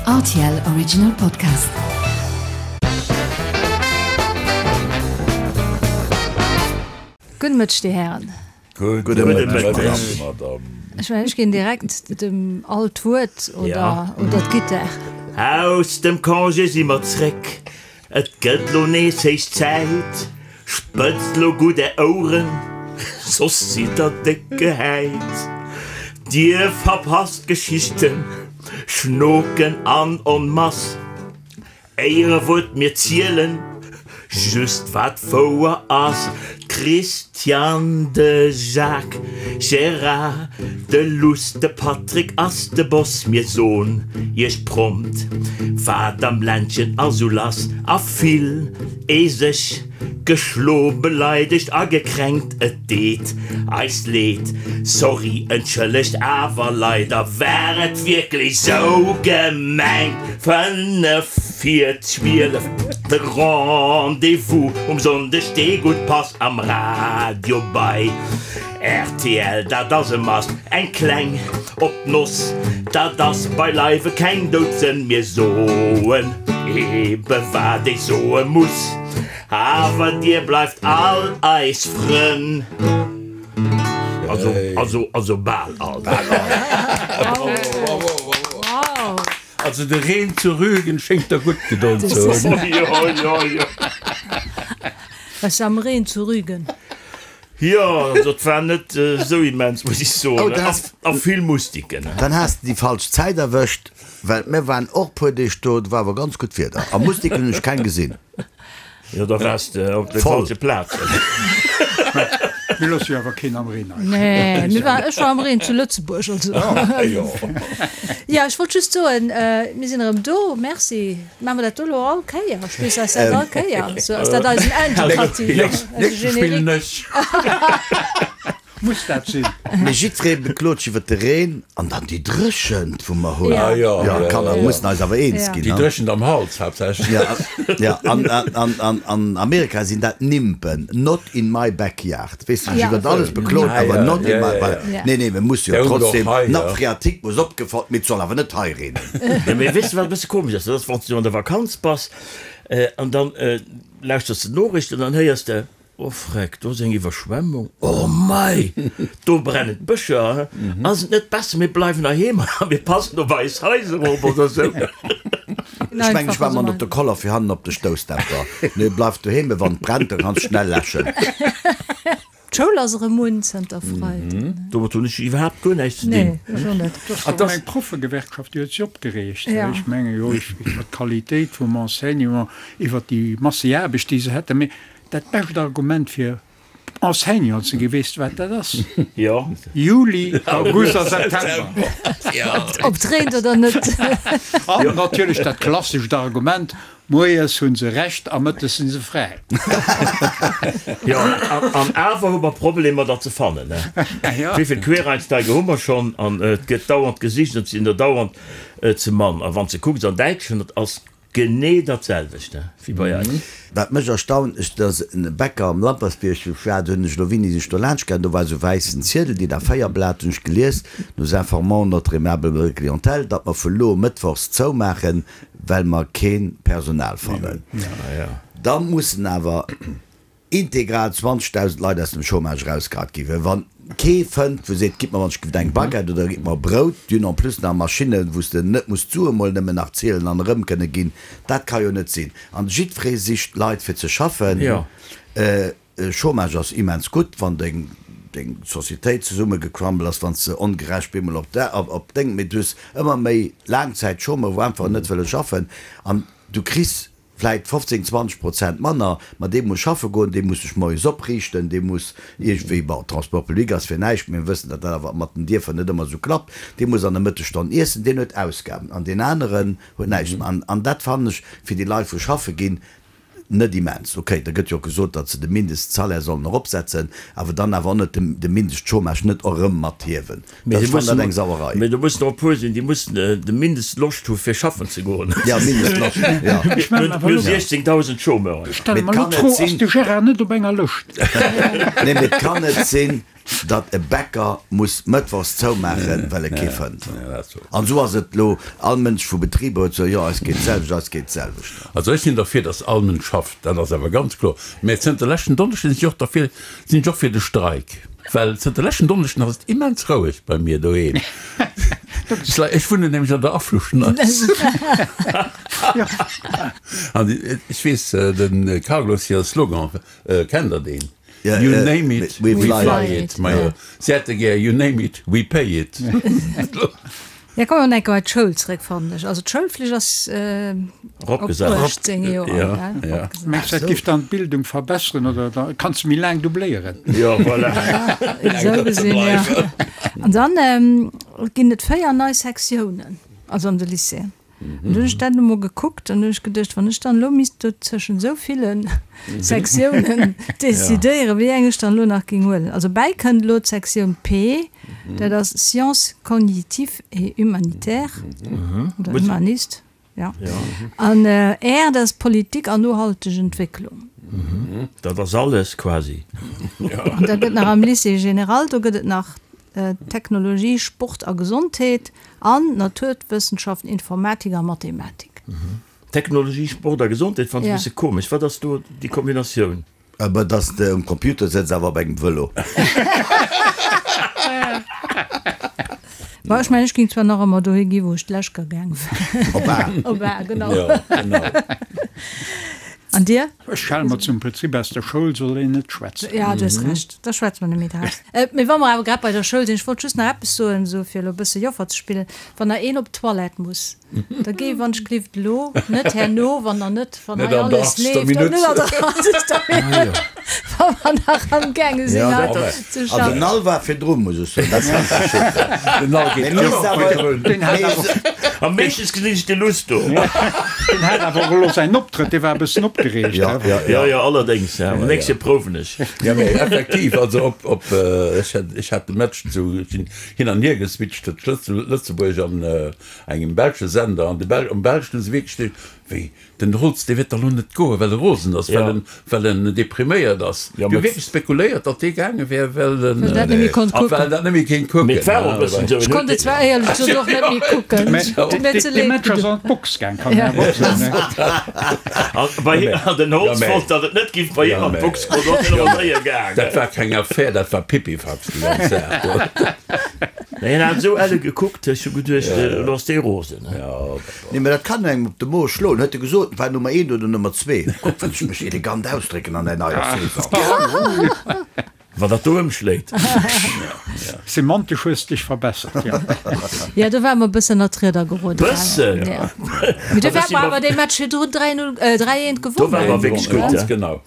Rtl Original Podcast. Gudde Mëtteg, Dir Hären. Gudde Mëtteg, Madame. Ech mengen, ech ginn direkt dem Al d'Wuert oder oder d'Gittar. Aus dem Congé si mer zréck, Et gëtt lo nees héich Zäit, spëtzt lo gutt är Oueren, soss sidd der déck gehäit. Dir verpasst Geschichten, Schnoken an en masse. Éierewuert, mir zielen just wat wouer ass. D'Christiane, de Jacques, Gérard, de Luss, de Patrick ass de Boss. Mir soen iech prompt, wat am Ländchen ass sou lass. A vill ee sech geschlo, beleidegt a gekränkt. Et deet eis leed, sorry, entschëllegt, awer leider war et wierklech sou gemengt. 5 vir 12, de Rendez-vous um Sonndeg, dee gutt passt am Radio bei rtl, dat ass e Must. Eng kleng op d'Noss, dat ass beileiwe keng Doudsënn, mir soen ebe wat ee soe muss, awer dir bleift all eis Frënn. Also, also, also bal all. Also de Reen zu Rügen schéngt der gutt gedon ze hunn. Jo, jo, jo. Was am Reen zu Rügen? Jo, also et war net esou immens, muss ech soen. A vill Mustiken. Dann has de déi falsch Zäit erwëscht, well mir waren och puer Deeg do, do war awer ganz gutt Wieder a Mustiken hunn ech keng gesinn. Jo, da waars de op der falsche Plaz. Mir loosse jo awer keen am Reen hei. Nee, mir war, ech war am Reen zu Lëtzebuerg, also. Jo, ech wollt just soen, mir sinn erëm do. Merci. Maache mer dat do elo all Kéier? Spills eis dat all Kéier? Sou ass dat eisen Indikativ, eise Générique. Muss dat sinn? Mee jiddweree beklot sech iwwer de Reen an dann déi Dréchent, wou mer hunn. Ah jo, Jo, Kanner mussen eis awer eens ginn. Déi Dréchent am Hals haaptsächlech. Ja, ja, an, an, an, an Amerika sinn dat Nimpen, not in my backyard. Weess de, sech iwwer alles beklot, awer not in my backyard. Nee, nee, mir musse jo trotzdem, d'Nappe phréatique muss opgefall, mee et soll awer net hei reenen. Jo, mee weess de, wat e bësse komesch ass? Dat ass, wann s du an der Vakanz bass an dann lauschters de d'Noriichten an dann héiers de, Oh freck, do ass eng Iwwerschwemmung, oh mei, do brennen d'Bëscher, ass et net besser mir bleiwen heiheem a mir passen op eis Haiser op oder sou? Ech mengen ech war mat op de Koller fir hannen op de Stoussdämpfer. Nee, bleif doheem, mee wann et brennt, da kanns schnell läschen. D'Schoul ass erëm un zënter Freiden. Domat hunn ech iwwerhaapt guer näischt ze dinn. Nee, ech och net. Et ass eng Proffegewerkschaft, déi huet sech opgereegt. Ech menge jo iwwer d'Qualitéit vum Enseignement, iwwer déi Masseaarbecht, déi se hätten. Mee Dat bescht Argument fir Enseignant ze ginn, weess de wat dat ass? Jo. Juli, August a September. Ob et reent oder net. An natierlech dat klassescht Argument, Moies hu se Recht a mëttes si se fräi. Jo, an awer hu mer Problemer der ze fannen. Wéi vill Quereinsteiger hu mer schonn? An et gëtt dauernd gesicht an et sinn der dauernd ze mann. A wann s de kucks an Däitschland, et ass Genee dat selwecht wéi bei eis. Wat mech erstaunt, ech, dat ass en Bäcker am Lampertsbierg, wou ech war, do hunn ech elo wéini sinn ech do laanscht gaangen, do war esou wäissen Ziedel, DIN A4 Blat, hunn ech gelies, Nous informons notre aimable clientèle, datt mer vu lo mëttwochs zoumaachen, well mer kee Personal fannen. Da mussen awer. Integral 20.000 Leit aus dem Chômage erausgehat ginn, well wann kee fënnt wou seet, gitt mer wann ech giff eng Baguette oder gitt mer Brout, déi hunn en plus nach Maschinnen, wou s de net muss d'Sue mol nëmmen nach zielen an erëm kënne ginn, dat ka jo net sinn. An jiddweree sicht Leit fir ze schaffen. Chômage ass immens gutt, wann deng deng Societéit zesummegecrumble ass, wann s de ongerecht bemol op op deng, mee du hues ëmmer méi Laangzäitchômeur wou einfach net wëlle schaffen an du kriss vläit 15, 20 Prozent manner, ma dee muss schaffe goen, dee muss sech moies opriichten, dee muss iergendwéi, bon, Transport public ass fir näischt, mee mir wëssen, datt dat awer mat den Dierfer net ëmmer esou klappt, dee muss an der Mëttesstonn iessen, deen huet Ausgaben an deen aneren huet näischt. An an dat fannen ech fir déi Leit, wou schaffe ginn, net immens. Okay, da gëtt jo och gesot, datt se de Mindestsalaire sollen eropsetzen, awer dann awer och net de Mindestchômage net och erëm mathiewen. Mee Ech fannen dat eng Sauerei. Mee do mussen och e puer sinn, déi mussen de Mindestloscht hu fir schaffen ze goen. Ja, Mindestloscht, ja. Ech mellen Mir awer hu elo. datt e Bäcker muss mëttwochs zoumaachen, well e kee fënnt. An esou ass et elo, all Mënsch vu Betriber huet gesot, jo eis geet d'selwecht, eis geet d'selwecht. Also ech sinn derfir, datt all Mënsch schafft, dat ass awer ganz kloer. Mä zënter leschten Donneschden sinn ech och derfir, sinn ech och fir de Streik, well zënter leschten Donneschden ass et immens roueg bei mir doheem. Ech wunnen nämlech an der Afluschneis. An ech weess, de Carlos hire Slogan, kennt Der deen? You name it, we fly it. Majo, si hätte gär You name it, we pay it. Ja, komm mer enke bei d'Schoul zréck, fannen ech. Also d'Schoulflicht ass op 18 Joer, gell? Mengs du, dat giff dann d'Bildung verbesseren oder da kanns du méi laang dubléieren? Jo, voilà. Esou gesinn, jo. An dann ginn et 4 nei Sektiounen, also an de Lycéeën. An du hunn ech dat emol gekuckt an hunn ech geduecht, wann ech dann elo misst do zwëschen esou ville Sektiounen decidéieren, wéi eng ech dann elo nach géing huelen. Also bäi kënnt elo d'Sektioun P, dat ass Sciences cognitives et humanitaires oder humanistes, jo. An R, dat ass Politik an nohalteg Entwécklung. Dat ass alles quasi. An da gëtt nach am Lycée général, do gëtt et nach Technologie, Sport a Gesondheet an Naturwëssenschaften, Informatik a Mathematik. Technologie, Sport a Gesondheet fannen ech e bësse komesch. Wat ass do déi Kombinatioun? Awer dass de um Computer sëtz awer op engem Vëlo. Bon, ech mengen, ech géing zwar nach ëmmer dohi gi wou ech d'lescht Kéier gaang war. Op A. Op A, genau. An dir? Ech schale mer zum Prinzip, aus der Schoul soll een net schwätzen. Jo, du hues Recht, da schwätze mer net méi draus. Mee wa mer awer grad bei der Schoul sinn, ech wollt just nach eppes soen, esou fir elo e bësse Joffer ze spillen, Wann der een op d'Toilette muss, da géi wann ech glift elo, net herno, wann der net, wann hei alles leeft, an net an der achtzegster Minutt, wa mer nach amgaange sinn hei ze schaffen. Also den Al war virdru, muss ech soen, dat kann ech bestätegen. Den Al geet ëmmer virdrun. Am meeschtens gesinn ech de Luss do. Deen hat awer och elo säin Optrëtt, dee war e bëssen opgereegt. Ja, ja, ja. Jo, allerdéngs, ja. Am nächste prouwen ech. Ja, mee effektiv, also op, op, ech hat, ech hat de Match zu, ech sinn hin an hier geswitcht tëscht Lëtzebuerg an engem belsche Sender, an de Bel, am Belschen hu se wierklech de, wéi, Den Holtz, dee wäert da lo net goen, well e rosen ass, well en, well en depriméiert ass. Mir hu wierklech spekuléiert, datt dee gaange wär, well en, Well dat net méi konnt well kucken. en dat net méi kéint kucken. Mee et war och e bëssen esou. Ech konnt et zwar éierlech gesot och net méi kucken. Mä Huet mir ze dee leed Match ass gedoen. an d'Box gaang, kann een awer och soen, ne? An bei him, an den Holtz wollt, datt et net giff bei him an d'Box goen, do ass en awer séier gaangen. Dat war keng Affär, dat war Pipifax, déi ganz Saach do. Mä hien hat esou elle gekuckt, ech hu geduecht, elo ass dee rosen. Nee, mä dat kann engem op de Mo schloen, huet e gesot. War Nummer eent oder Nummer zwee? Kuck, wéi ech mech elegant ausdrécken an der neier Saison. Wann dat do ëmschléit. Semantesch hues dech verbessert, jo. Jo, do ware mer e bëssen ënner d'Rieder geroden. Bëssen? Jo. Mee do ware mer awer dee Match virdrun 3, 0, 3, 1 gewonnen. Do ware mer wierklech gutt, Ganz genau.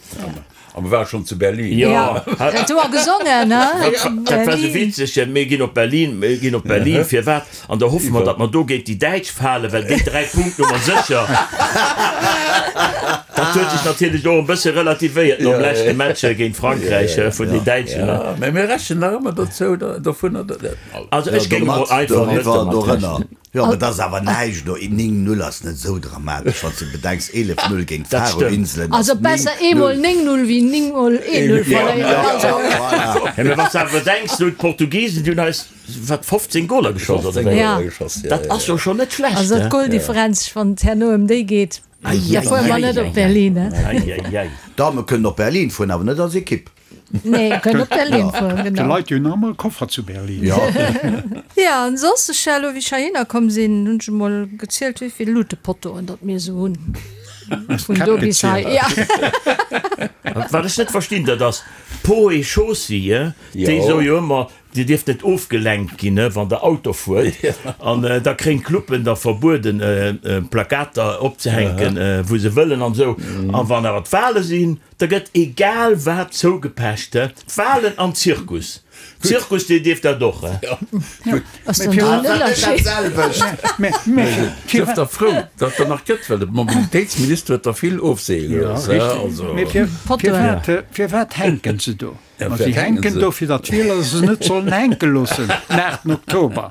A mer ware schonn zu Berlin. Jo. Dat hu mer gesongen, ne? Dat war esou witzeg, Mir ginn op Berlin, mir ginn op Berlin. Firwat? An da hoffe mer, datt mer do géint déi Däitsch falen, well déi 3 Punkten hu mer sécher. Dat huet sech natierlech och e bësse relativéiert nom leschte Match géint Frankräich vun den Däitschen. Jo, mä mir rechnen nach ëmmer dozou, dovunner, datt. Also ech géing emol einfach net domat rechnen. Jo, mä dat ass awer näischt do. 9, 0 ass net esou dramatesch, wann s de bedenks, 11, 0 géint Dat stëmmt. d'Faroe-Inselen ass Also 9, besser eemol 0. 9, 0 wéi 9 mol 1, 0 verléieren. Also. Voilà. Ja, mä wann s de awer bedenks, do d'Portugisen, déi hunn eis, wat, 15 Goler geschoss oder 15 wéi? Ja. Goler geschoss, ja, Dat ja, ass jo ja. schonn net schlecht, Also he? d'Goldifferenz, wann et herno ëm déi geet, da fuere mer net op Berlin, he? Ei, ei, ei. D'Dame kënnen op Berlin fueren, awer net als Ekipp. Nee, kënnen op Berlin fueren, De genau. Leit, déi hunn nach emol e Koffer zu Berlin. Jo. Ja, an soss, ech elo wéi ech heihinner komm sinn, hunn ech emol gezielt, wéi vill Lutepottoen datt mir esou hunn. Vun do bis hei, ja. Wat ech net verstinn, dat ass Poe Chaussy, déi soe jo ëmmer, Dir dierft net ofgelenkt ginn, wann der Auto fuert. An da kréien d'Cluben da verbueden, Plakater opzehänken, wou se wëllen an esou. A wann awer d'Wale sinn, da gëtt egal wat zougepecht. D'Walen an Zirkus. Zirkus, dir dierft dat och. Ass dann do en Ënnerscheed? Sief der frou, datt der nach gëtt, well de Mobilitéitsminister huet der vill ofseeë gelooss. Mee firwat hänken se do? Ma si hänken do, fir datt d'Wieler se net sollen hänke loossen den 8 Oktober.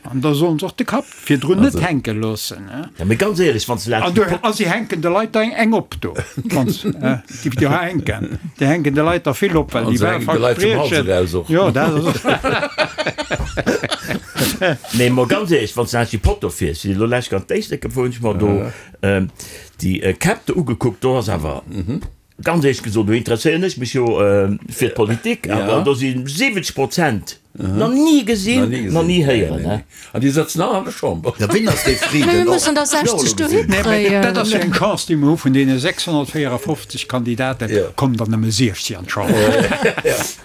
An da sollen se och de Kapp virdrun net hänke loossen. Ja, mee ganz éierlech, wann s de An du, a si hänken de Leit da eng op do, wann s, déi do hänken. Déi hänken de Leit der vill op, well déi Wahlverspriechen, jo, dat ass och. Nee, mol ganz éierlech, wann s de laanscht déi Potto fiers, elo lech ganz d'Éislek gefuer, hunn ech mer do déi Käpp do ugekuckt, do ass awer. Ganz éierlech gesot, do interesséieren ech mech jo fir d'Politik, awer do si 70 Prozent nach ni gesinn, nach ni héieren. An déi sëtzen all an der Chamber. Ja, wien ass dee Frieden? Mee mir mussen der 60 dohi kréien. Dat ass jo eng Chance, déi mer hu, vun deene 654 Kandidaten kommen der nëmme 16 an d'Chamber.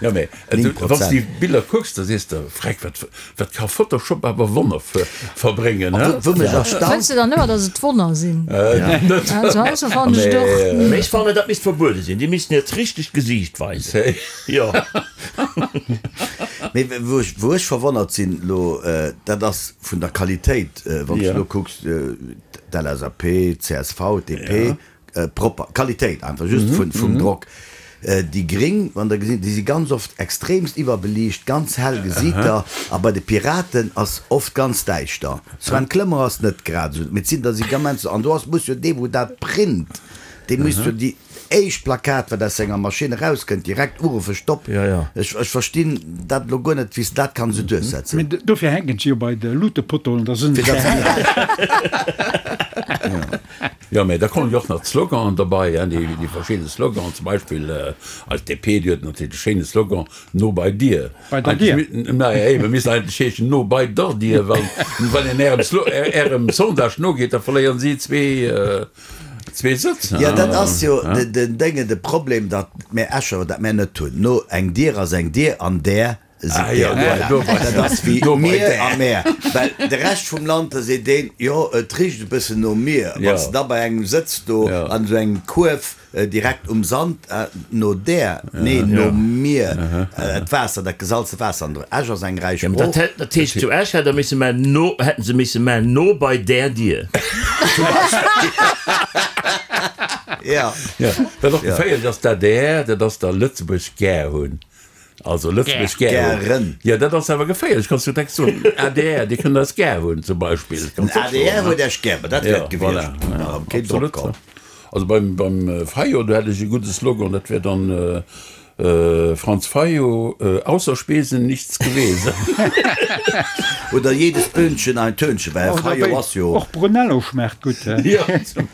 Jo, mee wann s de déi Biller kucks, da sees de, Freck, wat wat ka Photoshop awer Wonner verbréngen, he? Wou mech erstaunt. Fënns de dann ëmmer, datt et Wonner sinn? Net. Also also fannen ech et och. Mee ech fannen, dat misst verbuede sinn. Déi missten hiert richtegt Gesiicht weisen. Jo. Mee wou ech, wou ech verwonnert sinn elo, dat ass vun der Qualitéit, wann s de elo kucks, d'LSAP, d'CSV, d'DP, Propper Qualitéit einfach just vun vum Drock. Déi gring wann der gesinn, déi si ganz oft extremst iwwerbeliicht, ganz hell gesiit der a bei de Piraten ass oft ganz däischter. Sven Clement ass net grad esou, mee et sinn der si gammens an do ass muss jo dee wou dat print, dee muss jo déi éischt Plakat wat aus senger Maschinn erauskënnt direkt uruffen, Stopp, ech ech verstinn dat elo guer net wéi s de dat kann esou duerchsetzen. Mee dofir hänken se jo bei de Luutepottoen, da sinn se hell. Jo, mä da kommen jo och nach d'Sloganen derbei, hein, déi, déi verschidde Sloganen, zum Beispill eis DP, déi huet natierlech de schéine Slogan No bei dir. Bei der Dier. Naja, eben, misst eigentlech heeschen No bei der Dier, well wann een Ärem Slo-, Ärem Sondage nogeet, da verléieren si zwee, zwee Sëtz, hein. Jo, dat ass jo den Déngen, de Problem, datt mär Escher dat mär net hunn. No, eng Dier ass eng Dier an där Ah jo, do bei Dat ass wéi mir a mär. Well de Rescht vum Land, da seet een, jo, et richt e bëssen no mir. Wann s de da bei engem sëtz do an esou engem Kuerf direkt um Sand, no där, nee, no mir, d'Waasser, dat gesalze Waasser an der Esch ass eng räich Sprooch. Dat heescht, zu Esch hätt der misse man no, hätten se misse man no bei där Dier. Zum Beispill. Ja. Wat och geféierlech ass, d'ADR, dat ass der Lëtzebuerg gär hunn. Also Lëtzebuerg gär hunn. Jo, dat ass awer geféierlech. Kanns du direkt soen, ADR, déi kënnen eis gär hunn, zum Beispill. Den ADR huet Iech gär, ma dat wär et gewiescht. Voilà, absolut. Also beim, beim Fayot, do hätt ech e gudde Slogan, dat wär dann, Franz Fayot, ausser Spesen nichts gewesen. Oder jedes Böhnchen ein Tönchen, well Här Fayot ass jo. Och Brunello schmaacht gutt, he?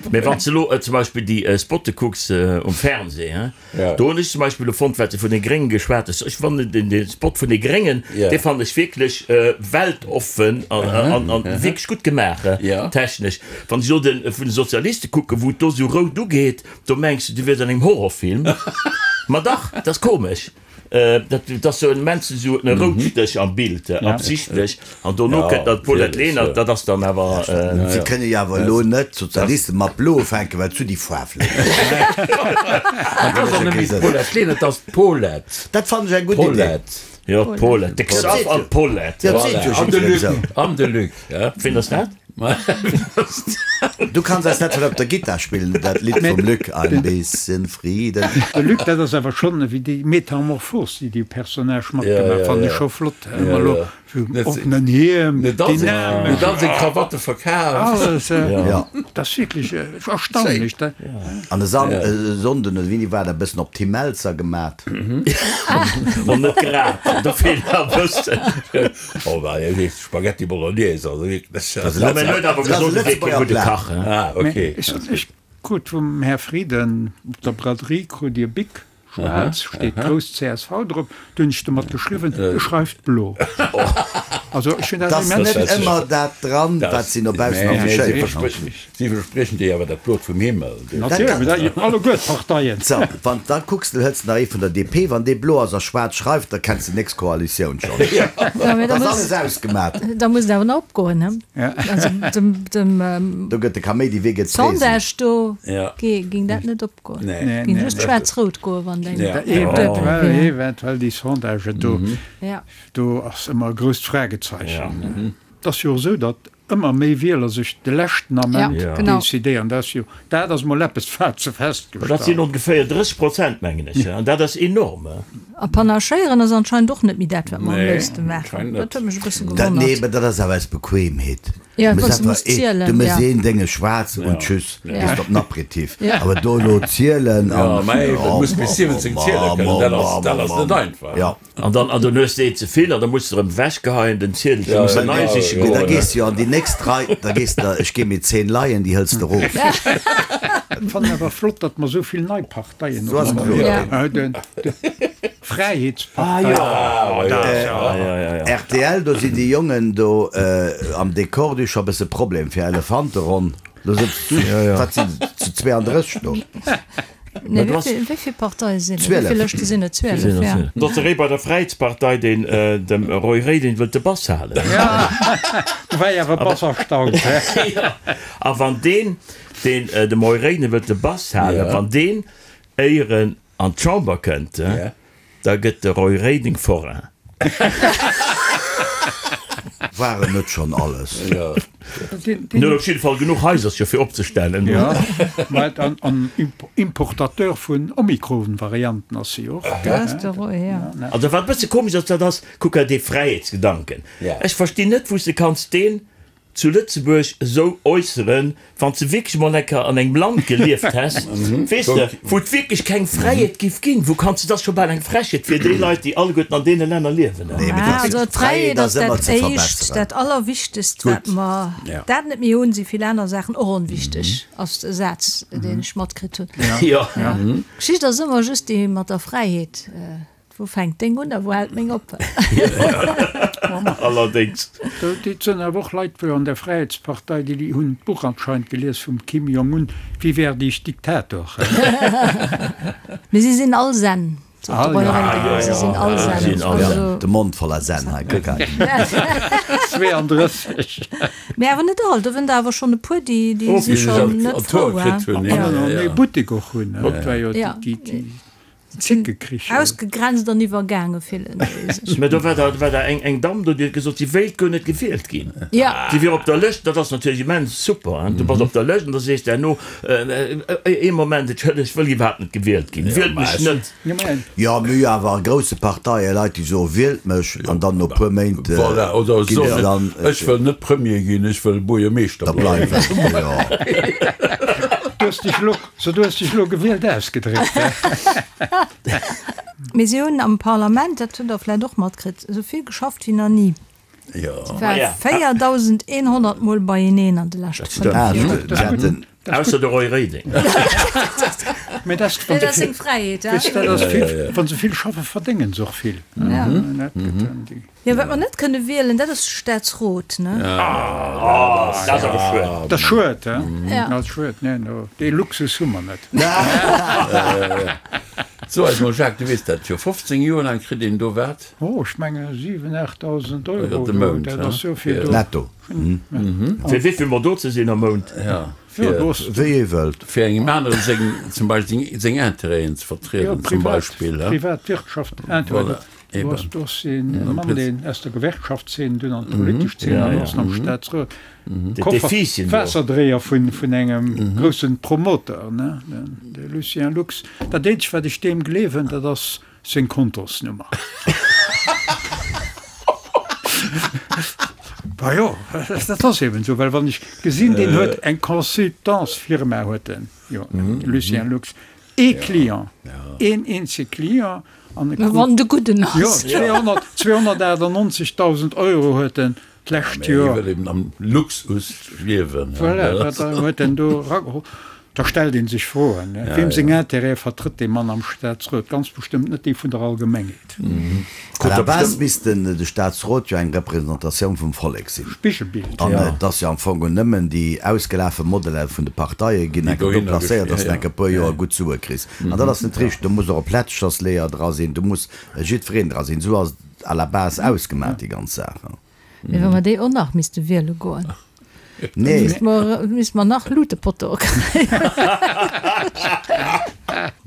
Mee wann s de elo zum Beispill déi Spotte kucks um Fernseh, he? Do hunn ech zum Beispill elo fonnt, wat de vun de Gréngen geschwat hues, ech fannen den den Spot vun de Gréngen, dee fannen ech wierklech weltoffen an an wierklech gutt gemaach technesch. Wann ech elo de vun de Sozialiste kucken, wou et do esou rout ugeet, do mengs de, du wiers an engem Horrorfilm. Ma dach, dat ass komesch. Dat dat ass sou immens esou e Routstéch am Bild, absichtlech. An dono kënnt nach d'Paulette Lenert, dat ass dann awer. Si kënne jo awer elo net d'Sozialisten mat blo ufänken, well zu déi Faarf. An dat ass och net méi d'Paulette Lenert, dat ass d'Paulette. Dat fannen ech eng gutt Idee. Paulette. Jo, d'Paulette. De Xaph an d'Paulette. Ja, dat seet jo An de jiddwereen Luc. esou. An de Luc, ja. Ween ass dat? Du kanns eis dat vun op der Gittar spillen, dat Lidd vum Luc, Ein bisschen Frieden. De Luc, dat ass awer schonn ewéi déi Metamorphos, déi dee Personnage matgemaach, fannen ech scho flott. Ëmmer elo vum offenen Hiem, dynamesch. Huet all seng Krawatte verkaaft. Alles, dat ass wierklech erstaunlech. An e Sonnden oder wéini war dat, e bëssen op Tim Mälzer gemat. Bon, net grad, do feelt nach e bëssen. Oh, bah, Spaghetti Bolognese, also wierklech. Dat ass e Lëtzebuerger Plat. Ah, ok. Ech krut vum Här Frieden op der Braderie krut Dir Bic, schwaarz, steet grouss csv drop. Du hunn ech domat geschriwwen, e schreift blo. Also ech hunn dat 't ass immens. net ëmmer dat dran, wat si no baussen affichéieren. Si verspriechen dir awer dat Blot vum Himmel. Natierlech, alleguer d'Parteien. So, wann s da kucks, du hëls nach ee vun der DP, wann dee blo ass a schwaarz schreift, da kenns de nächst Koalitioun schonn. Dat ass alles ausgemat. Da muss et awer nach opgoen, he? Also dem, dem. Do gëtt de Kaméidi, wee gëtt d'Reesen? Sondage do géing dat net opgoen. Géing just schwaarz-rout goen, wann deng duebel wier. Eventuell déi Sondagen do, do ass ëmmer e grousst Fragezeichen. Et ass jo och esou, datt. ëmmer méi Wieler sech de leschten Ament Ja, genau. decidéieren. Dat ass jo, dat ass mol eppes, wat se Dat sinn festgestallt. ongeféier 30 Prozent, mengen ech, an dat ass enorm. A panachéieren ass anscheinend och net méi dat, wat mer am Nee, léifste maachen. anscheinend Dat net. huet mech e bësse Dat, nee, gewonnert. mä dat ass awer aus Bequemheet. Ja, Du well muss se muss einfach ee, zielen, du muss ja. een Dénge schwaarz und tschüss, Ja. gehst op den Aperitif. Ja. Awer do elo zielen Ja, an, mä eben, oh, muss bis 17 ziele kënnen, dat ass, dat ass net einfach. Ja. An dann, an dann hues de een ze vill an da muss de erëm ewechgeheien, den Ziedel, Ja, muss de ja, nei ja, siche ja. Mee da goen. gees de jo an déi nächst Rei, da gees de, ech gi mir 10 Leien, déi hëls de erof. Ech fannen awer flott, datt mer esou vill nei Parteien So ass och kloer. Ja. hunn. D'Fräiheetspartei. Ah, jo. Ja, ja, ja. Rtl, do sinn déi Jongen do am Dekor, déi hu scho e bësse Problem fir Elefanteronn. Do sëtzt, wat sinn se, zu 32 do? Nee, wéi vill, wéi vill Parteie sinn et? Wéi vill Lëschte sinn et? 12, ja. Do ass de Réi bei der Fräiheetspartei, deen dem Roy Reding wëllt de Bass halen. Do war ech awer e bass erstaunt. Jo, a wann deen, deen dem Roy Reding wëllt de Bass halen, wann deen éieren an d'Chamber kënnt, da gëtt de Roy Reding Forain. Waren net schon alles. En huet op jidde Fall genuch Haisercher fir opzestellen. Jo, mä an Importateur vun Omikron-Varianten ass si och. Also wat e bësse komesch ass, dat ass, kuck hei dee Fräiheetsgedanken. Ech verstinn net, wou s de kanns deen zu Lëtzebuerg esou äusseren, wann s de wierklech emol eng Kéier an engem Land gelieft häss, weess de, wou et wierklech keng Fräiheet giff ginn, wou kanns de, dat ass scho bal eng Frechheet fir déi Leit, déi alleguerten an deene Länner liewen. Nee, mee dat Also d'Fräiheet ass ëmmer dat ze Éischt, verbesseren. dat Allerwichtegst, wat mer dat net méi hunn, si vill aner Saachen och onwichteg, ass e Saz, deen ech matkritt hunn. Jo. D'Geschicht ass ëmmer just déi mat der Fräiheet. Wou fänkt deng un a wou hält meng op? Allerdéngs. Et sënn awer och Leit wou an der Fräiheetspartei, déi hunn d'Buch anscheinend gelies vum Kim Jong Un, Wie werde ich Diktator? Mee si sinn all Zen, sot de Roy Reding. Si sinn all Zen. Also. De Mond voller Zen hei, kuck hei. 32. Mee awer net all, do wënn der awer schonn e puer, déi si schonn net frou. An en ee Buttek och hunn, dat war jo déi. Zickekrich. Ausgegrenzt an iwwergaange fillen déi sech. Mä do war da war da eng eng Damm do, déi huet gesot, si wéilt guer net gewielt ginn. Ja. Si wier op der Lëscht, dat ass natierlech immens super, hein, du bass op der Lëscht an da sees de herno, ee Moment, ech ech wëll iwwerhaapt net gewielt ginn, wielt mech net. Jo, mir hu jo awer a grousse Parteie Leit, déi soe wielt mech an dann no puer Méint Voilà, oder ginn se soen, dann. ech wëll net Premier ginn, ech wëll Buergermeeschter Da bleiwen. Jo. Du hues dech elo So, du hues dech elo gewielt ausgedréckt, he? Mee si hunn am Parlament, dat hutt Der vläicht och matkritt, esou vill geschafft wéi nach ni. Jo. Si ware 4.100 Mol beieneen an de leschte 5 Ah, Joer. si haten. Ausser de Roy Reding. Mee dat ass, wann Dat se ass seng vill, Fräiheet, he? weess de, dat ass vill, wa se vill schaffen, verdéngen se och vill. Dat gëtt dann déi. Jo, wat mer net kënne wielen, dat ass de Staatsrot, ne? Dat ass awer schued. Dat ass schued, he? Ja. Dat ass schued. Nee, no, dee Luxus hu mer net. So eis mol, Jacques, du weess dat jo, 15 Joer laang kritt een do wat? Oh, ech menge 7, 8.000 Euro De do, Mount, dat he? ass jo fir do. Netto. Fir wéi vill mol do ze sinn am Mount? Ja, Jo, fir, do ass. Wéi ee wëllt. fir engem anere seng, zum Beispill seng, seng Intérêten ze Jo, vertrieden, zum privat, Beispill, he? privat Wirtschaft, Intérêt. Voilà. Do ass, do ass een Mann, deen aus der Gewerkschaftszeen dunn an d'politesch Zeen an ass am Staatsrot. Koffer, Waasserdréier vun, vun engem groussen Promoteur, ne, de Lucien Lux. Dat eenzegt, wat ech deem gleewen, dat ass seng Kontosnummer. Bah jo, dat ass eben esou, well wann ech gesinn, deen huet eng Consultantsfirma huet en, jo, de Lucien Lux, Ee Client, een eenzege Client an e krut. Wann de gudden ass. Jo, 298.000 Euro huet en d'lescht Joer. Hie wëll eben am Luxus liewen. Voilà, wat huet en do erageholl? Da stellt ee sech Froen, Weem seng Intérêtë vertrëtt dee Mann am Staatsrot? Ganz bestëmmt net déi vun der Allgemengheet. À la base misst den de Staatsrot jo eng Representatioun vum Vollek sinn. Spigelbild. An et ass jo am Fong nëmmen déi ausgelafe Modeller vun de Parteie ginn enke do placéiert, dass de enke puer Joer gutt Sue kriss. An dat ass net richteg. Do muss och e Plätschersleeër dra sinn, do muss jiddwereen dra sinn. Esou ass et à la base ausgemaach, déi ganz Saach. Mee wa mer déi och nach misste wiele goen. Nee. Misste mer, misste mer nach Luutepottoe kréien.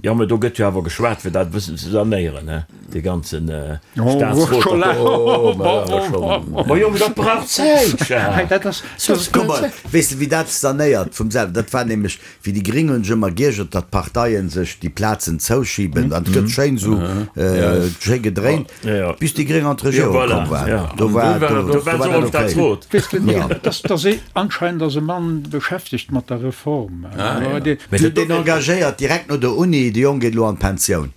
Jo, mä do gëtt jo awer geschwat, fir dat e bëssen ze sanéieren, he, dee ganzen Staatsrot. Ma jo, mä dat brauch Zäit, Jacques. Kuck mol, weess de, wéi dat sanéiert vum selwen? Dat war nämlech, wéi déi Gring hunn sech ëmmer giergert, datt d'Parteien sech déi Plazen zouschiben, an et gëtt schéin esou schéi gedréint, bis déi Gring an d'Regierung komm waren. Do war dat okay. Weess de, dat ass anscheinend ass e Mann beschäftegt mat der Reform. Mee deen engagéiert direkt no der Uni, de Jong geet elo an d'Pensioun.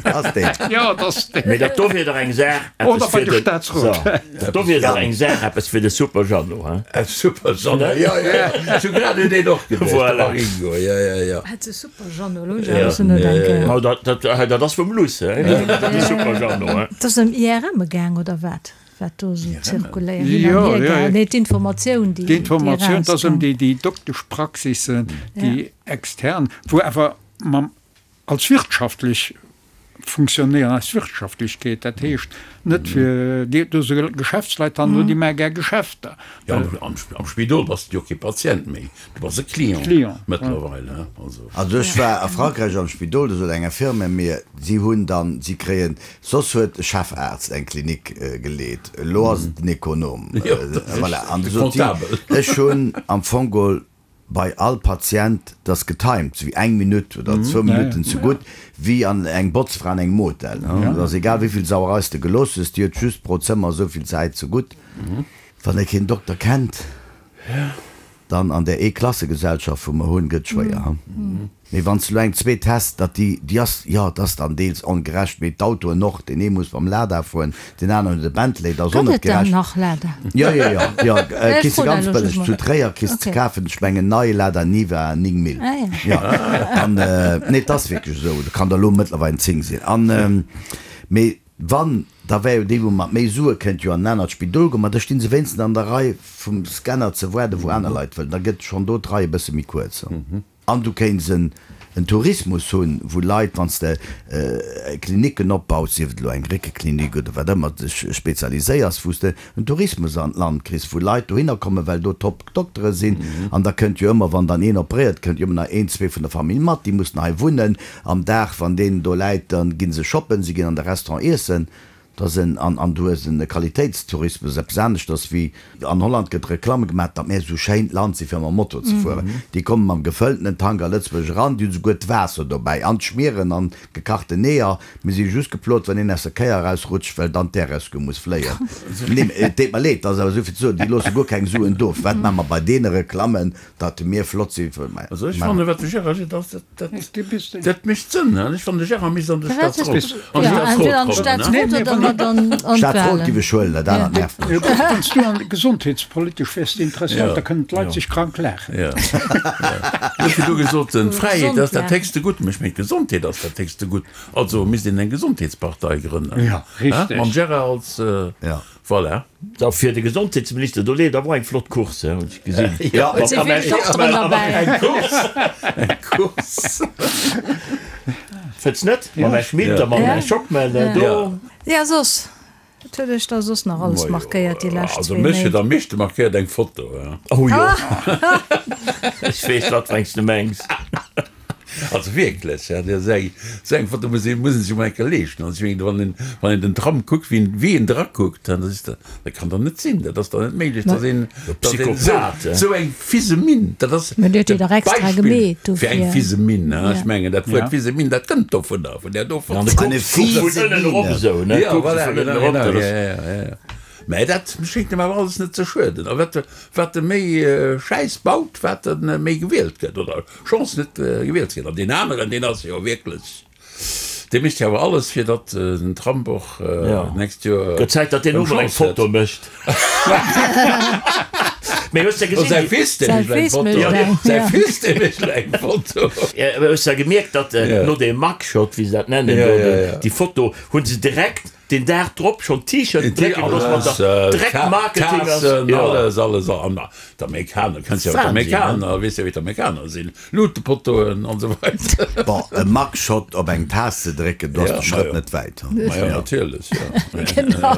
Ass deen. Jo, et ass deen. Mee dat do wier dach eng Saach, eppes fir de, so, dat do wier dach eng Saach, eppes fir de Super Jeannot, hein? E Super Jeannot, jo, jo, jo, ech hu grad un deen och geduecht, de Voilà. Maringo, jo, jo, jo. Hätt se Super Jeannot, elo hunn ech awer bëssen nodenken. Ma dat, dat, dat ass vum Luss, hein, dat de Super Jeannot, hein? Et ass ëm IRM gaang, oder wat? Wat do esou zirkuléiert, hin an hier gaangen. Nee, d'Informatioun, déi D'Informatioun, et ass ëm erauskoum. déi, déi Dokteschpraxissen, déi extern, wou awer mam, als wirtschaftlech funktionéieren, als Wirtschaftlechkeet, dat heescht net fir déi, do si Geschäftsleit hannendrun, déi maache gär Geschäfter. Jo, am, am Spidol bass de jo kee Patient méi, du bass e Client Client, mëttlerweil, hein, also. Also ech war a Frankräich am Spidol, do sot eng Infirmière mir, si hunn dann, si kréien Soss huet e Chefaarzt eng Klinik geleet, elo ass et den Ekonom. Voilà. An du sot si, ech hunn am Fong geholl bei all Patient, dat ass getimed, sou wéi eng Minutt oder zwou Minutten zegutt, wéi an eng Botzfra an engem Hotel. Et ass egal, wéi vill Sauerei s de gelooss hues, déi huet just pro Zëmmer esou vill Zäit zegutt. Wann ee keen Dokter kennt, dann an där Eeklassegesellschaft, wou mer hunn, gëtt et schwéier. Mee wann s de elo eng zweet häss, datt déi, déi ass, jo, et ass dann deels ongerecht, mee d'Autoen och, deen ee muss mam Lada fueren, deen aneren huet e Bentley, dat ass och Gëtt net et dann gerecht. nach Lada? Jo, jo, jo, jo, Ech kriss de froen ganz elo just bëlleg mol. zu Tréier kriss de Okay. kafen, ech mengen nei Lada Niva 9 Mille. Ah ja. Jo, an, nee, et ass wierklech esou, do kann der elo mëttlerweil 10 sinn. An, mee wann, da wär jo déi wou mat méi Sue kënnt jo an en anert Spidol goen, ma da sti se wéinstens an der Rei vum Scanner ze waarden, wou aner Leit wëllen, da gëtt schonn do d'Rei e bësse méi kuerz. An du kéints en Tourismus hunn, wou Leit, wann s de Klinicken opbaus, sief et elo eng Réckeklinik oder wat ëmmer dech spezialiséiers, wou s de en Tourismus an d'Land kriss, wou Leit dohinner kommen, well do Top-Doktere sinn. An da kënnt jo ëmmer, wann dann een operéiert, kënnt jo ëmmer nach een, zwee vun der Famill mat, déi mussen hei wunnen. Am Dag, wann deen do läit, da gi se shoppen, si ginn an de Restaurant iessen. Dass en, an, an du hues en Qualitéitstourismus, eppes aneschters wéi an Holland gëtt Reklamm gemaach, datt mir esou schéint Land si fir mam Moto ze fueren. Déi komme mam gefëlltenen Tank a Lëtzebuerg eran, déi hunn souguer d'Waasser dobäi an d'Schmieren an gekachten Eeër. Mir si just geplot, wann een aus der Kéier erausrutscht, well dann d'Air-Rescue muss fléien. Nee, et deet mer leed, dat ass awer esou vill ze soen, déi loosse guer keng Suen do. Wat maache mer bei deene Reklammen, datt mir flott si fir. Also ech fannen, wat de Gérard seet, ass, dat, dat, dat mécht Sënn. Ech fannen, de Gérard misst an de Staatsrot, an de Staatsrot kommen. Staatsrot giff ech huelen, dat anert nervt mech. Wann s du an gesondheetspolitesch wäers interesséiert, da kënnen d'Leit sech krank laachen. Jo. Du hues virdu gesot, d'Fräiheet ass dat héchste Gutt. Mä ech mengen, d'Gesondheet ass dat héchste Gutt. Also misst een eng Gesondheetspartei grënnen. Jo, richteg. Mam Gérard als. Voilà. Da fir de Gesondheetsminister, do leeft awer och eng flott Course, hunn ech gesinn. Jo, Et si vill Dokteren derbäi. Eng Course, eng Course. Fënns net? Mam Här Schmit a mam Här Schockmel do. Jo, soss, wat huet iech da soss nach alles markéiert déi lescht Also zwee mech huet Méint? am meeschte markéiert eng Foto. Oh jo, ech weess, wat fir eng s de mengs. Also wierklech, ja, dat ass eng, esou eng Foto muss ee, muss een sech emol eng Kéier leeschten. Also ech mengen, wann een, wann een den Tram kuckt, wéi en, wéi en drakuckt, dann ass dat, dat kann doch net sinn, dat ass doch net méiglech, dass een, dass een esou, Psychopath, eh? esou eng fise Minn, dat ass Mä dir hutt de déi dach extra Beispill gemeet fir eng dofir. fise Minn, hein. Ja. Ech mengen, dat Wuert Ja. fise Minn, dat kënnt dovunner, vun där do An Foto. de Eine kucks, kucks vun fiese ënnen erop Mine. esou, ne? Ja, Kucks voilà, vun ënnen genau, erop, genau, dat ja, ass. ja, ja, ja. Mä dat schéngt em awer alles net ze schueden. A wat, wat e méi Schäiss baut, wat e méi gewielt gëtt, oder? Chance net gewielt ze ginn. An deen aneren, deen ass jo wierklech, dee mécht jo awer alles, fir datt den Trump och d'nächst Joer Gëtt Zäit, datt deen eng och mol eng Chance huet. Foto mécht. Mee hues de Oh, gesinn, säi déi. Fils, dee Säi mécht elo eng Fils mécht Foto. eng, Säi ja. Fils, dee mécht elo eng Foto. Mee hues de gemierkt, datt no deem Mugshot, wéi se dat nennen, Ja, do, ja, ja. déi Foto, hu se direkt deen Dag drop schonn T-Shirten drécke gelooss mat der Dreck Marketing ass. Taassen, alles, alles. An d'Amerikaner, kenns jo d'Amerikaner, weess jo wéi d'Amerikaner sinn, Luutepottoen an esou weider. Bon, e Mugshot op eng Taass ze drécken, do ass de Schrëtt net wäit. Ma jo, natierlech, jo. Genau.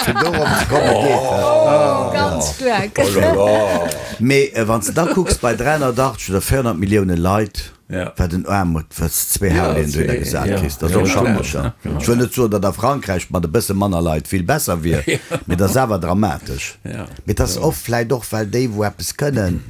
Fir dorop ze komme geet dat. Ganz staark. Oh la la. Mee wann s de da kucks, bei 380 oder 400 Millioune Leit. Wat en Aarmut, wat s de zwéi Harleyen dohinner gesat kriss, dat ass och schappeg. Ech wëll net soen, datt a Frankräich mat e bësse manner Leit vill besser wier, mee et ass awer dramatesch. Mee et ass oft vläicht och, well déi, wou eppes kënnen,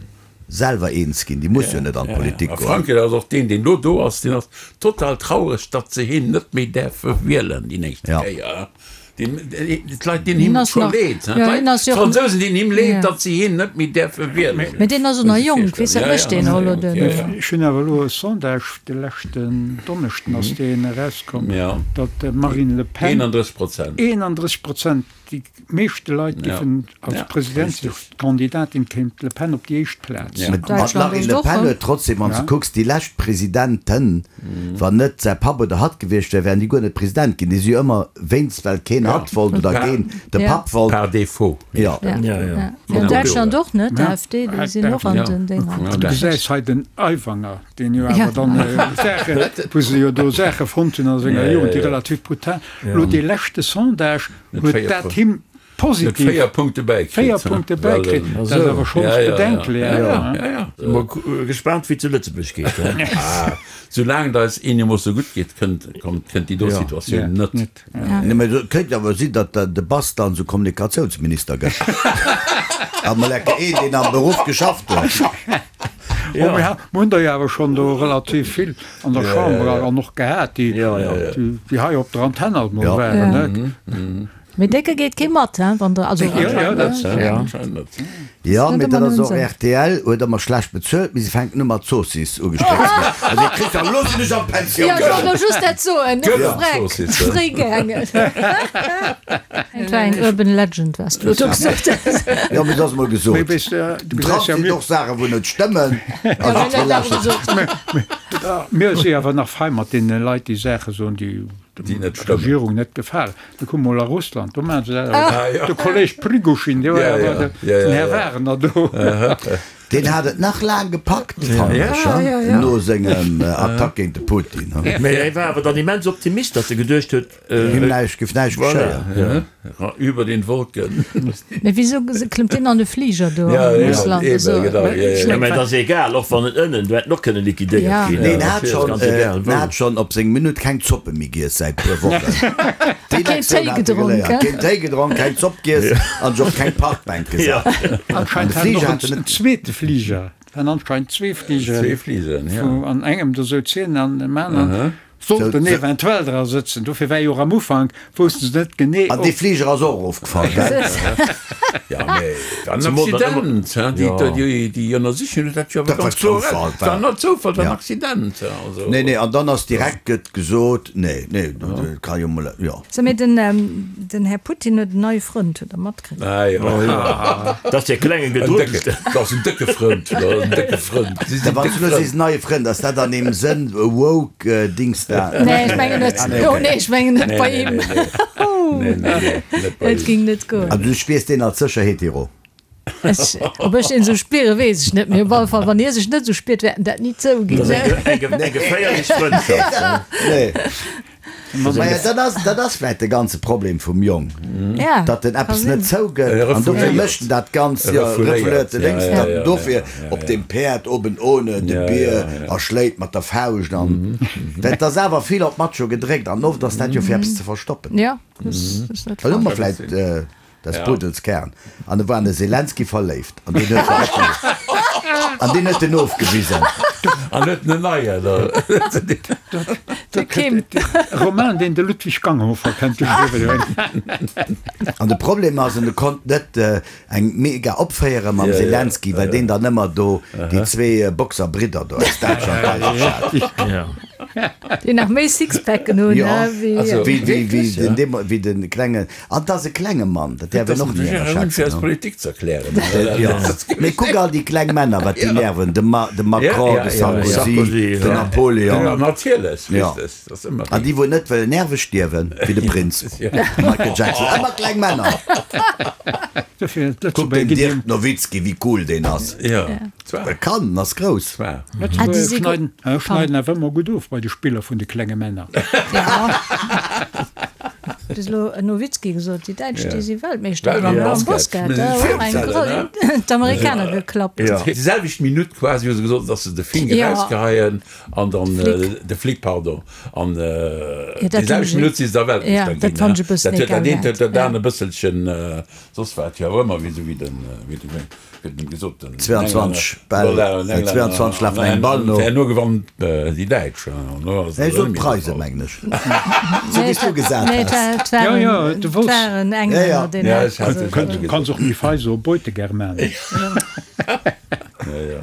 selwer eens ginn, déi musse jo net an d'Politik A goen. Frankräich ass och deen, deen elo do ass, deen ass total traureg, datt se hien net méi däerfe wielen déi nächst Kéier. D'Leit dinn him scho leed. D'Fransousen dinn him leed, datt si hien net méi däerfe wielen. Mee deen ass och nach jonk, weess, wat mécht deen elo? Ech hunn awer elo e Sondage, de leschten Donneschden ass deen erauskomm, datt d'Marine Le Pen 31 Prozent, déi meeschte Leit giffen als Presidentskandidatin kéim d'Le Pen op déi éischt Plaz. Mä d'Marine Le Pen huet trotzdem, wann s de kucks, déi lescht Presidenten, Wann net säi Papp oder hatt gewiescht wär, wären déi guer net President ginn. Déi si jo ëmmer wéinst well keen hatt wollt oder keen de Papp wollt. Par défaut. Jo. An Däitschland och net, d'AfD, déi sinn och an den Dénger. Du gesäis hei den Aiwanger, deen jo awer dann Saachen, wou se jo do Saache fonnt hunn a senger Jugend, déi relativ brutal. Elo dee leschte Sondage huet dat him Positiv. 4 Punkte bäikritt. 4 Punkte bäikritt, dat ass awer schonns bedenklech. Ja, ja. Si mol gespaant wéi et zu Lëtzebuerg geet. Soulaang et eis eenermoosse gutt geet, kënnt kënnt déi do Situatioun net. Nee, mä et kéint awer sinn, datt de Bass dann esou Kommunikatiounsminister gëtt. A mol enke een, deen am Beruff geschafft huet. Jo, mir hunn der jo awer schonn do relativ vill an der Chamber an och gehat, déi déi hei op der Antenn alt mol waren, ne? Mee décke geet kee mat, hein, wann der, also. Jo, jo, dat anscheinend net. Jo, mee dat ass och, rtl huet ëmmer schlecht bezuelt, mee se fänken u mat Zoossiss ugestréckt ze ginn. Also dir kritt jo, elo sinn ech an d'Pensioun Jo, ech wollt elo just dat soen, Freck, fréi gaangen. Et war eng urban legend, wat s du elo do gesot hues. Jo, mee et ass emol gesot. Den Trump seet och Saachen, wou net stëmmen. A jiddweree lauschtert. Mir si awer nach fei mat deene Leit, déi Saache soen, déi Déi net der stëmmen. Regierung net gefalen. Da kuck mol a Russland, do maachen se dat awer. De Kolleg Prigoshin, dee war awer den Här Wagner do. Deen hat et nach laang gepackt, fannen ech, no sengem Attack géint de Putin. Mee hie war awer dann immens Optimist, datt e geduecht huet. Him näischt, géif näischt geschéien. Über den Wolken. Mee wisou klëmmt deen an de Fliger do a Russland? Ja, genau. Ja, mä et ass egal, och wann en ënnen, do hätt en och kënne liquidéiert ginn. Nee, en hat schonn, en hat schonn op seng Minutt keng Zoppe méi giess säit puer Wochen. Déi Keen Lektioun Téi hat e gedronk, geléiert. he? Keen Téi gedronk, keng Zopp giess an sech op keng Parkbänk gesat. An de Anscheinend hat en Fliger och hat en en net. zweete Fliger. Et waren anscheinend zwee Fligeren. Zwee Fligeren, ja. Wou an engem do souz hien an dem aneren Sollten eventuell dra sëtzen. Dofir war jo och am Ufank, woussten se net genee, An dee Fliger ass och erofgefall, gell? Ja, mee et war en Accident, hein. Déi, déi Ënnersichung huet dat jo awer Dat war ganz kloer Zoufall, eraus. War net Zoufall, war en Ja. Accident, hein, also. Nee, nee, an dann ass direkt gëtt gesot, nee, nee, dat ka jo mol, jo. So, mee den, den Här Putin huet en neie Frënd, hutt Der matkritt? Ah, jo. Dat ass dee klengen Gedruckten. Dat ass en décke Frënd. Dat ass en décke Frënd. Si sinn Wann déck s du elo Frënn. sees neie Frënd, ass dat an deem Sënn woke Dings da? Nee, ech mengen net. Ah, nee, Oh okay. nee, ech mengen net Nee, bei nee, him. nee, nee. Nee, nee, nee, net bei Et him. ging net goen. Also du spiers deen als sécher hetero? Ech, ob ech deen esou spiere, weess ech net. Mee op alle Fall, wann hie sech net esou spiert, wäert en dat ni zouginn. Dat ass eng, eng geféierlech Frëndschaft. Nee. Maja, dat ass, dat ass vläit de ganze Problem vum Jong, Ja, datt en ka eppes sinn. net zougëtt E an dofir refouléiert. mécht en dat Ganzt, E jo, refouléiert, refouléiert de ja, lénks, ja, datt en ja, dofir ja, ja, op ja. deem Päerd oben ohne de Ja, Bier ja, ja. erschléit mat der Fauscht an well et ass awer vill op Macho gedréckt an oft ass dat jo fir eppes ze verstoppen. Ja, dat ass net Well hu mer falsch. vläit Des Puddels Kern. An e war an de Selenskyj verléift. An deen huet an deen huet en ofgewisen. An huet en en neien. De Kim. Roman, deen de Ludwig Ganghofer kennt geschriwwen huet. An de Problem ass, en konnt net eng mega opféiere mam Selenskyj, well deen dann ëmmer do déi zwee Boxerbridder do aus Däitschland bei sech hat. Déi nach méi Sixpacken hunn, wéi wéi de klengen. An 't ass e klenge Mann, dat däerf een och ni ënnerschätzen. Politik ze erklären. Mee kuck all déi kleng Männer, wat déi nerven, de Macron, de Sarkozy, den Napoleon. Natierlech, richteg. An déi wou net wëllen nerveg stierwen, wéi de Prinz, de Michael Jackson, ëmmer kleng Männer. Kuck den Dirk Nowitzki, wéi cool deen ass. E kann, en ass grouss. Lëtzebuerger schneiden awer ëmmer gutt of bei de Spiller vun de klenge Männer. Du hues elo Nowitzki gesot, déi Däitsch, déi si Weltmeeschter ginn am Basket. D'Amerikaner geklappt. Déi selwecht Minutt quasi hu se gesot, datt se de Fink erausgeheien an dann de Flick, pardon, an déi selwecht Minutt si se da Weltmeeschter ginn. Dat huet dat eent huet dat aner e bësselchen soss wat, jo ëmmer wéi esou wéi den, wéi den. 22 Bäll, 22 lafen engem Ball no. Herno gewannen déi Däitsch. Nee, ech sot d'Preisen, mengen ech. Sou wéi s du gesat has. Jo, jo, du wolls. Du kanns och méi fei soen, Beutegermanen.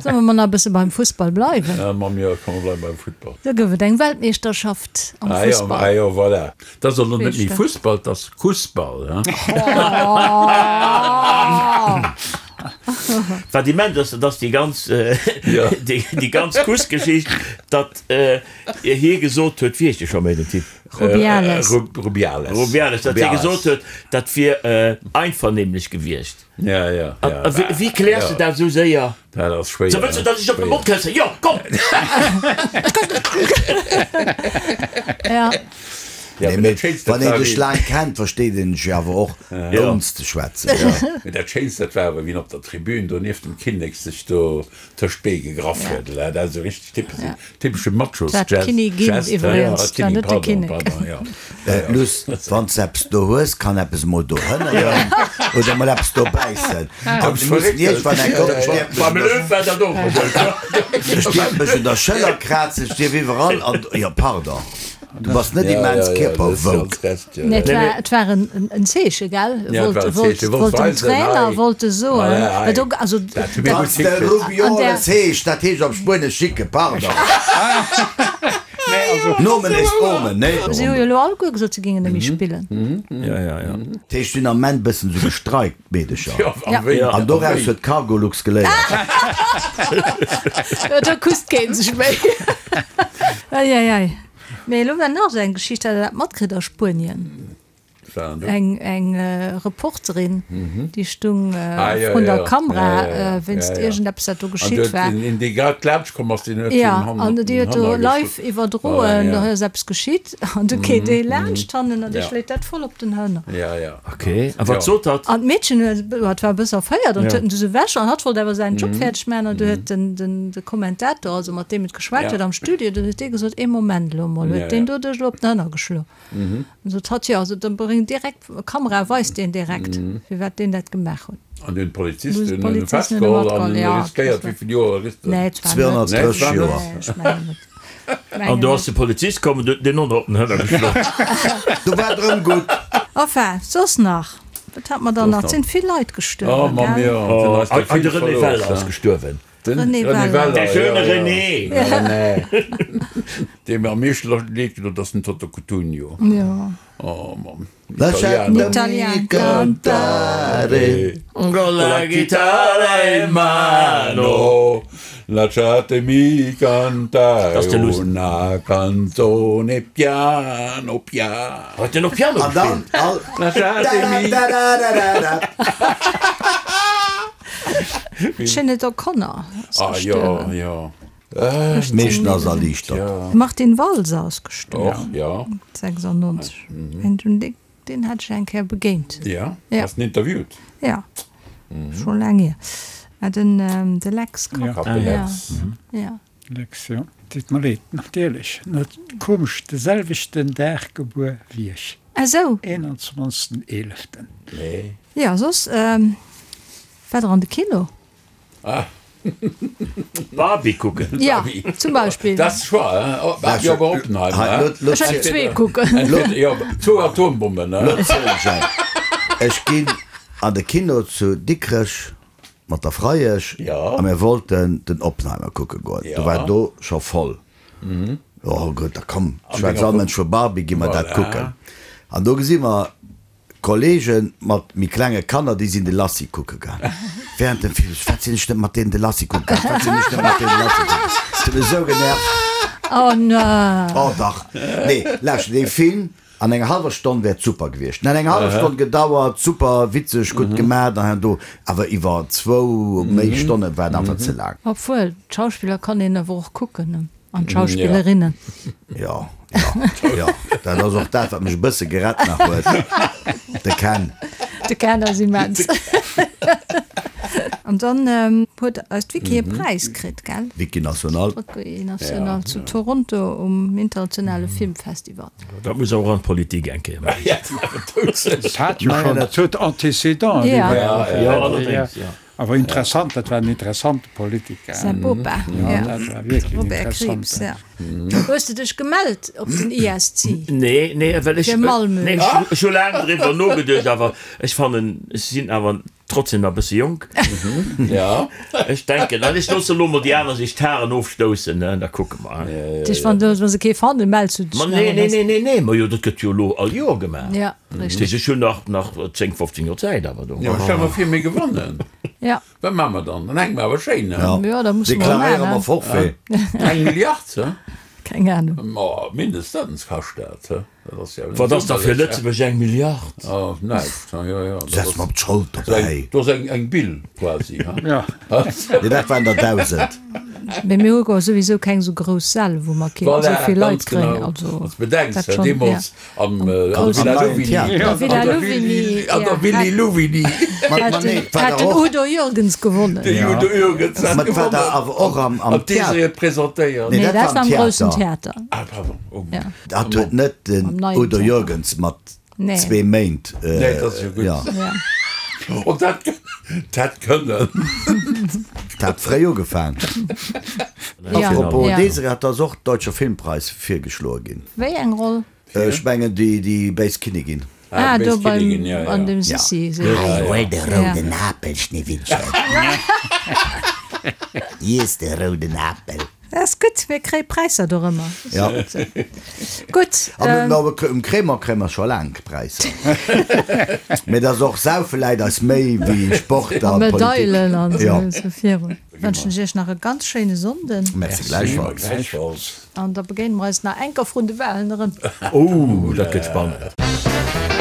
Solle mer nach e bësse beim Fussball bleiwen? Jo, komm mer bleiwe beim Futtball. Do gouf et eng Weltmeeschterschaft am Fussball. Ah jo, voilà. Dat ass elo net méi Fussball, dat ass Kussball. Wat immens ass, dat ass déi ganz, déi ganz Kussgeschicht, datt hie gesot huet, wéi heescht dee scho méi, den Typ? Rubiales. Rubiales. Rubiales, datt hie gesot huet, dat wier einvernehmlech gewiescht. Ja, ja, ja. A wéi kläers de dat esou séier? Dat ass schwéier. So, wëlls du, datt ech op de Mond këssen? Jo, komm! Ja. Nee, mee wann een dech laang kennt, versteet een dech jo awer och, ouni ze schwätzen. Mee dat Schéinst, dat war awer, wéi en op der Tribün do nieft dem Kinnek sech do tëscht d'Bee gegraff huet. Dat ass esou richteg typesch, typesche Machos-Gest. Dat war d'Kinnigin iwwregens, dat war net de Kinnek. Luss, wann s eppes do hues, kann eppes emol do hënneren oder emol eppes do bäissen. An du muss iergendwann eng Kéier, ech dierf mech un der, ech dierf mech un der Schëller krazen, ech dierf iwwerall an, jo pardon, du bass net immens kierperwoke. Nee, et war, et war en Zeeche, gell? Wollt, wollt dem Trainer wollt e soen, well do, also. Wann s de Rubioles heescht, dat heescht op Spuenesch Schicke, pardon. Nomen est omen, nee? Si hu jo elo alleguer gesot, se géingen net méi spillen. Dat heescht, si hunn am Ament bëssen esou gestreikt, d'Meedecher. An doraus huet d'Cargolux geléiert. Do kusst keen sech méi. Eieiei. Mee elo war nach esou eng Geschicht, hat Der dat matkritt a Spuenien? Eng eng Reporterin, déi stung vrun der Kamera wéinst iergendeppes, wat do geschitt war. Jo, an déi huet do live iwwerdroen, do ass eppes geschitt an du keet ee laanscht hannen an dee schléit dat voll op den Hënner. Ok, a wat sot hatt? An d'Meedchen huet, hat war e bësse erféiert an huet en du sou ewech an hatt wollt awer säin Job fäerdeg maachen an du huet den den de Kommentator, also mat deem et geschwat huet am Studio, du huet dee gesot, ee Moment elo emol, huet deen do dech elo op den Hënner geschloen? An sot hatt, jo, also dann bréng direkt Kamera, weist deen direkt, firwat deen dat gemaach huet. An du hunn d'Polizisten en festgeholl an en riskéiert, wéi vill Joer riskt en? 230 Joer. An do ass de Polizist komm an huet deen och nach op den Hënner geschloen. Do war et erëm gutt. Enfin, soss nach? Wat hat mer dann nach? Et sinn vill Leit gestuerwen, gell? An de René Weller ass gestuerwen. De René Weller. De schöne René. René. Dee mir am meeschten leed gedoen huet, ass den Toto Cutugno. Jo. Oh Mann. Lasciatemi cantare. Con la chitarra in mano. Lasciatemi cantare una canzone piano piano. Huet en och Piano gespillt? Lasciatemi. D'Sinéad O'Connor ass gestuerwen. Ah jo, jo. Meeschten ass erliichtert. Martin Walser ass gestuerwen. Och, jo. 96. Deen hat ech eng Kéier begéint. Ja? Has den interviewt? Ja. Scho laang hier. Ah, den, de Lex Kopp. De Lex. Ja. Lex, jo. Deet mer leed, natierlech. Net komesch, de selwechten Dag gebuer wéi ech. Ah sou. 21. Eeleften. Nee. Ja, soss, waart der an de Kino? Ah. Barbie kucken. Ja, zum Beispill. Dat ass Choix, hein? Oh, Barbie oder Oppenheimer, hein? Ech hätt zwee kucken. Jo, zwou Atombommen, hein? Lo zielen ech eng. Ech ginn an de Kino zu Dikrech mat der Freiesch a mir wollten den Oppenheimer kucke goen. Do war do scho voll. Jo gutt, da komm, schwätzt all Mënsch vu Barbie, gi mer dat kucken. An do gesi mer Kollegen mat méi klenge Kanner, déi sinn de Lassie kucke gaang. Während dem Film, Wat sinn ech net mat deenen de Lassie kucke gaang, wat sinn ech net mat deenen de Lassie kucke gaang. Et huet mech esou genervt. Oh no. Oh dach. Nee, lauschter, dee Film an enger hallwer Stonn wär et super gewiescht. En hätt eng hallef Stonn gedauert, super witzeg, gutt gemaat an hei an do, awer iwwer zwou, méi Stonne war et einfach ze laang. Obwuel, d'Schauspiller kann een awer och kucken, ne? An d'Schauspillerinnen. Jo, jo, jo. Dat ass och dat, wat mech e bësse gerett nach huet. De Ken. De Ken ass immens. An dann huet eis d'Vicky e Präis kritt, gell? Vicky National. Vicky National zu Toronto um internationale Filmfestival. Dat muss och an d'Politik eng Kéier maachen. Dat hat jo schonn, dat huet Antécédenten. Jo, allerdéngs, jo. Awer interessant, dat war en interessante Politiker. Säi Bopa, ja. Dat war wierklech en Robert Krieps, interessanten. ja. Hues de dech gemellt op den ISC? Nee, nee, well ech, Fir Malmö. nee, ech hu laang driwwer nogeduecht, awer ech fannen, ech sinn awer trotzdem nach e bësse jonk. Ja. Ech denken, an ech loosse elo mol déi aner sech d'Haren ofstoussen, ne, da kucke mer. Dech, wann wa se kee fannen, mells du dech Ma nach, nee, oder nee, nee, nee, nee, ma jo, dat gëtt jo elo all Joer gemaach. Ja. Richtig. Ech hunn nach nach 10, 15 Joer Zäit awer do. Jo, stell mer vir mir gewannen. Ja. Wat maache mer dann? Dann hänke mer awer schéin, ne? Ja, da musse mer Deklaréiere maachen. mer Forfait. Eng Milliard, he? Keng Ahnung. Ma mindestens kascht dat, he? Dat ass jo Wat ass da fir Lëtzebuerg eng Milliard? Oh, näischt, he? Jo, jo. Setz mer op d'Schold dobäi. Do ass eng, eng Bill quasi, he? Ja. Nee, dat waren der 1.000. Mee mir hu jo souwisou keng esou grouss Säll, wou mer kéinten Voilà, esou vill Leit ganz kréien. genau. Also, Wann s de bedenks, dat he, schonn, ja. deemools Am Am neien Theater. Villa Louvigny. An der Willy Louvigny. Hat den Udo Jürgens gewonnen. Den Udo Jürgens hat gewonnen. War da awer och am Theater. An d'Désirée huet presentéiert. Nee, dat war am groussen Theater. Ah, pardon. Oh. Dat huet net den Udo Jürgens mat zwee Méint. Nee, dat ass jo gutt. Oh, dat hätt kënnen. Dat hat fréi ugefaang. Apropos Désirée, hat ass och Deutscher Filmpreis virgeschloe ginn. Wéi eng Roll? Ech mengen déi béis Kinnigin. Ah, do beim an dem Sissi. Hei, huel de rouden Apel, Schneewittchen. Iess de rouden Apel. Dat ass gutt, mir kréie Präisser dorëmmer. Ja. Gutt. An um Crémant kréie mer scho laang Präisser. Mee et ass och, saufe läit eis méi wéi Sport a A Politik. Medailen an esou virun. Wënschen ech iech nach e ganz schéine Sonnden. Merci gläichfalls. Gläichfalls. An da begéine mer eis nach enker vrun de Wahlen erëm. Oh, dat gëtt spannend.